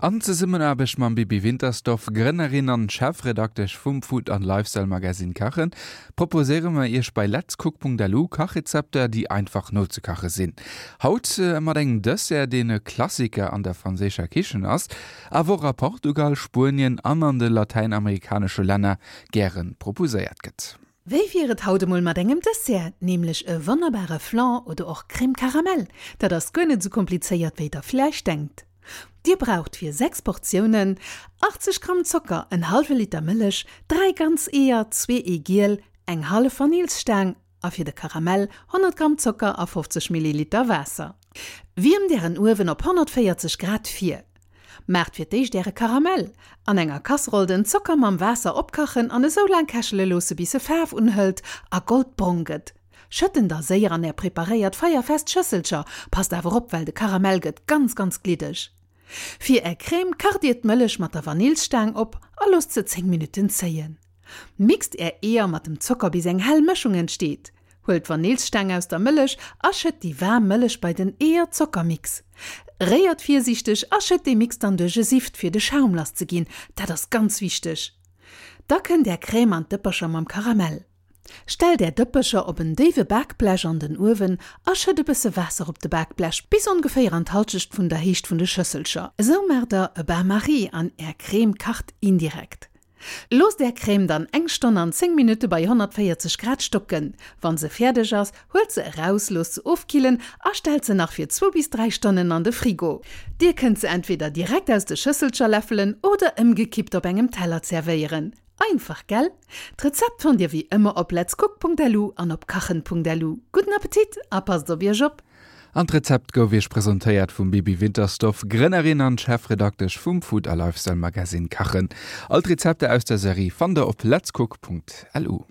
An Zesummenaarbecht mam Bibi Wintersdorf, Grënnerin an Chefredaktesch vum Food an Lifestyle Magazine Kachen, proposéiere mer iech bei letscook.lu Kachrezepter, déi einfach nozekache sinn. Haut mat engem Dessert, deen e Klassiker an der franséischer Kichen ass, awer och a Portugal, Spuenien an an de latäinamerikanesche Länner gäre proposéiert gëtt. Wéi wier et haut emol mat engem Dessert, nämlech e wonnerbare Flan oder och Crème Caramel? Dat ass guer net esou komplizéiert wéi der villäicht denkt. Dir braucht fir 6 Portiounen, 80 Gramm Zocker, en hallwe Liter Mëllech, 3 ganz Eeër, zwee Eegiel, eng hallef Vanillsstaang a fir de Karamell 100 Gramm Zocker a 50 Milliliter Waasser. Wiermt Ären Uewen op 140 Grad vir. Maacht fir d'éischt Äre Karamell. An enger Kasseroll den Zocker mam Waasser opkachen an esou laang kächele loosse bis e Faarf unhëlt a goldbrong gëtt. Schëtt en da séier an är preparéiert feierfest Schësselcher, passt awer op well de Karamell gëtt ganz ganz gliddeg. Fir är Crème kacht dir d'Mëllech mat der Vanillsstaang op a loosst se 10 Minutten zéien. Mixt är Eeër mat dem Zocker bis eng hell Mëschung entsteet. Huelt d'Vanillsstaang aus der Mëllech a schëtt déi waarm Mëllech bei den Eeër-Zocker-Mix. Réiert virsiichteg a schëtt dee Mix dann duerch e Sift fir de Schaum lass ze ginn, dat ass ganz wichteg. Da kënnt är Crème an d'Dëppercher mam Karamell. Stellt är Dëppercher op en déiwe Bakblech an den Uewen a schëtt e bësse Waasser op de Bakblech, bis ongeféier an d'Halschecht vun der Héicht vun de Schësselcher. Esou maacht der e Bain-Marie an är Crème kacht indirekt. Loosst är Crème dann eng Stonn an 10 Minutte bei 140 Grad stocken. Wann se fäerdeg ass, huelt se eraus, loosst se ofkillen a stellt se nach fir zwou bis 3 Stonnen an de Frigo. Dir kënnt se entweder direkt aus de Schësselcher läffelen oder ëmgekippt op engem Teller zerwéieren. Einfach, gell? D'Rezept fannt dir wéi ëmmer op letscook.lu an op kachen.lu. Gudden Appetit a passt op iech op! An d'Rezept gouf iech presentéiert vum Bibi Wintersdorf, Grënnerin an Chefredaktesch vum Food a Lifestyle Magazine Kachen. All d'Rezepter aus der Serie fannt der op letscook.lu.